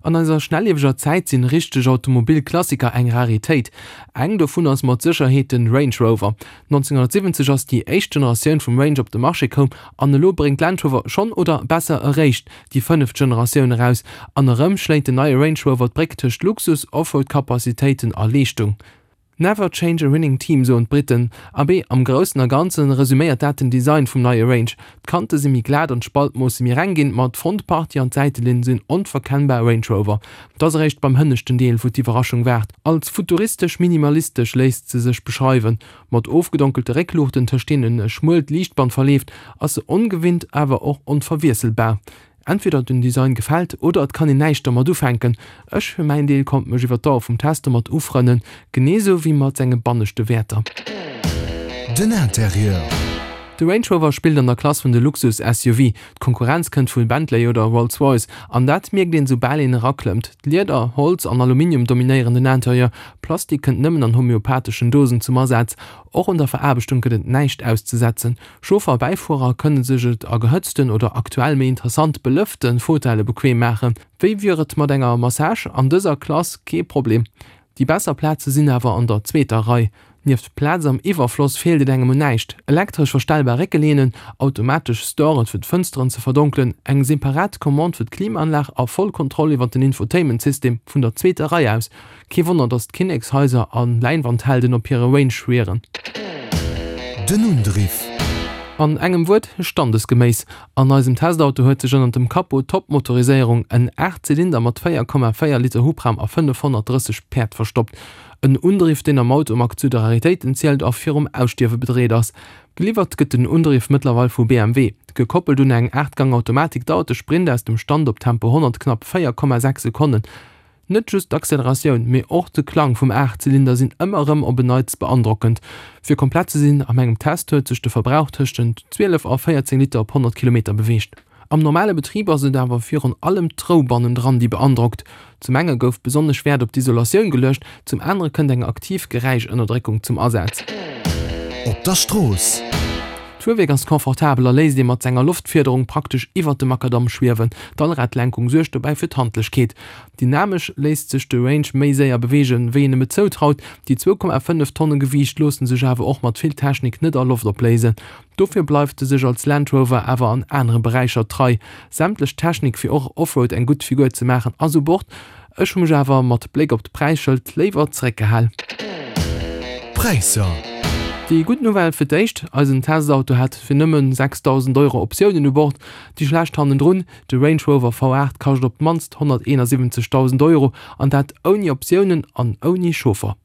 An eiser schnellieweger Zäit sinn richteg Automobilklassiker eng Raritéit. Eng dovun ass mat Sécherheet den Range Rover. 1970 ass déi éischt Generatioun vum Range op de Marché koum an elo bréngt Land Rover schonn, oder besser eréischt, déi fënneft Generatioun eraus. An erëm schléit den neie Range Rover d'Bréck tëscht Luxus, Offroad-Capacitéiten a Leeschtung. Never change a winning team, soen d'Briten. Abee, am Groussen a Ganzen resuméiert dat den Design vum neie Range. D'Kante si méi glat an d'Spaltmoosse méi reng ginn, ma d'Frontpartie an d'Säitelinn sinn onverkennbar Range Rover. Et ass eréischt beim hënneschten Deel, wou d'Iwwerraschung waart. Als futuristesch-minimalistesch léisst se sech beschreiwen. Mat ofgedonkelte Réckluuchten, tëscht deenen e schmuelt Liichtband verleeft, ass se ongewinnt, awer och onverwiesselbar. Entweder den Design gefält oder et kann een näischt dermat ufänken. Ech fir mäin Deel konnt mech iwwer d'Dauer vum Test domat ufrënnen, genee sou wéi mat senge banneschte Wäerter. Den Interieur. De Range Rover spillt an der Klass vun de Luxus-SUV. D'Konkurrenz kënnt vu Bentley oder Rolls-Royce an dat mierkt een soubal een eraklëmmt. Lieder, Holz an Aluminium dominéieren den Interieur, Plastik kënnt nëmmen an homöopatheschen Dosen zum Asaz. Och un der Veraarbechtung gëtt et näischt auszesetzen. Chauffer a Bäifuerer kënne sech et a gehëtzten oder aktuell méi interessant belëfte Fauteuile bequem maachen. Wéi wier et mat enger Massage? An dëser Klass kee Problem. Déi besser Plaze sinn awer an der zweeter Rei. Nieft Plaz am Iwwerfloss feelt et engem un näischt, elektresch verstellbar Réckelehnen, automatesch Storen fir d'Fënsteren ze verdonkelen, eng separat Commande fir d'Klimaanlag a voll Kontroll iwwer den Infotainment-System vun der zweeter Rei aus. Kee Wonner, datt d'Kinnekshaiser a Läinwandhelden op hire Range schwieren. Den Undriff. An engem Wuert, standesgeméiss. An eisem Testauto huet sech ënnert dem Capot d'Top-Motoriséierung, en 8 Zylinder mat 4,4 Liter Hubraum a 530 Päerd verstoppt. En Undriff, deen am Automag zu de Raritéiten zielt a virum Ausstierwe bedreet ass. Geliwwert gëtt den Undriff mëttlerweil vu BMW. Gekoppelt un eng 8 Gang Automatik dauert de Sprint aus dem Stand op Tempo 100 knapp 4,6 Sekonnen. Net just d'Acceleratioun, mee och de Klang vum Aachtzylinder sinn ëmmer erëm op en Neits beandrockend. Fir komplett ze sinn, a mengem Test huet sech de Verbrauch tëschent 12 a 14 Liter op 100 Kilometer beweegt. Am normale Betrib ass et awer virun allem d'Rou bannendran, déi beandrockt. Zum enge gouf besonnesch Wäert op d'Isolatioun geluecht, zum anere kënnt eng aktiv Geräischënnerdréckung zum Asaz. Op der Strooss. D'Fuerwierk ass confortabel a léisst ee mat senger Loftfiederung praktesch iwwert de Makadamm schwiewen. D'Allradlenkung suergt dobäi fir d'Handlechkeet. Dynamesch léisst sech de Range méi séier beweegen, wéi een em et zoutraut. Déi 2,5 Tonne Gewiicht loosse sech awer och mat vill Technik net a Loft opléisen. Dofir bleift e sech als Land Rover awer an anere Beräicher trei. Sämtlech Technik fir och Offroad eng gutt Figur ze maachen ass u Bord. Ech hu mech awer mat Bléck op d'Präisschëld léiwer zeréckgehal. Präisser. Déi gutt Nouvelle fir d'éischt, eisen Testauto hat fir nëmmen 6.000 Euro Optiounen u Bord. Déi schlecht hannendrun, de Range Rover V8 kascht op d'mannst 171.000 Euro, an dat ouni Optiounen an ouni Chauffer.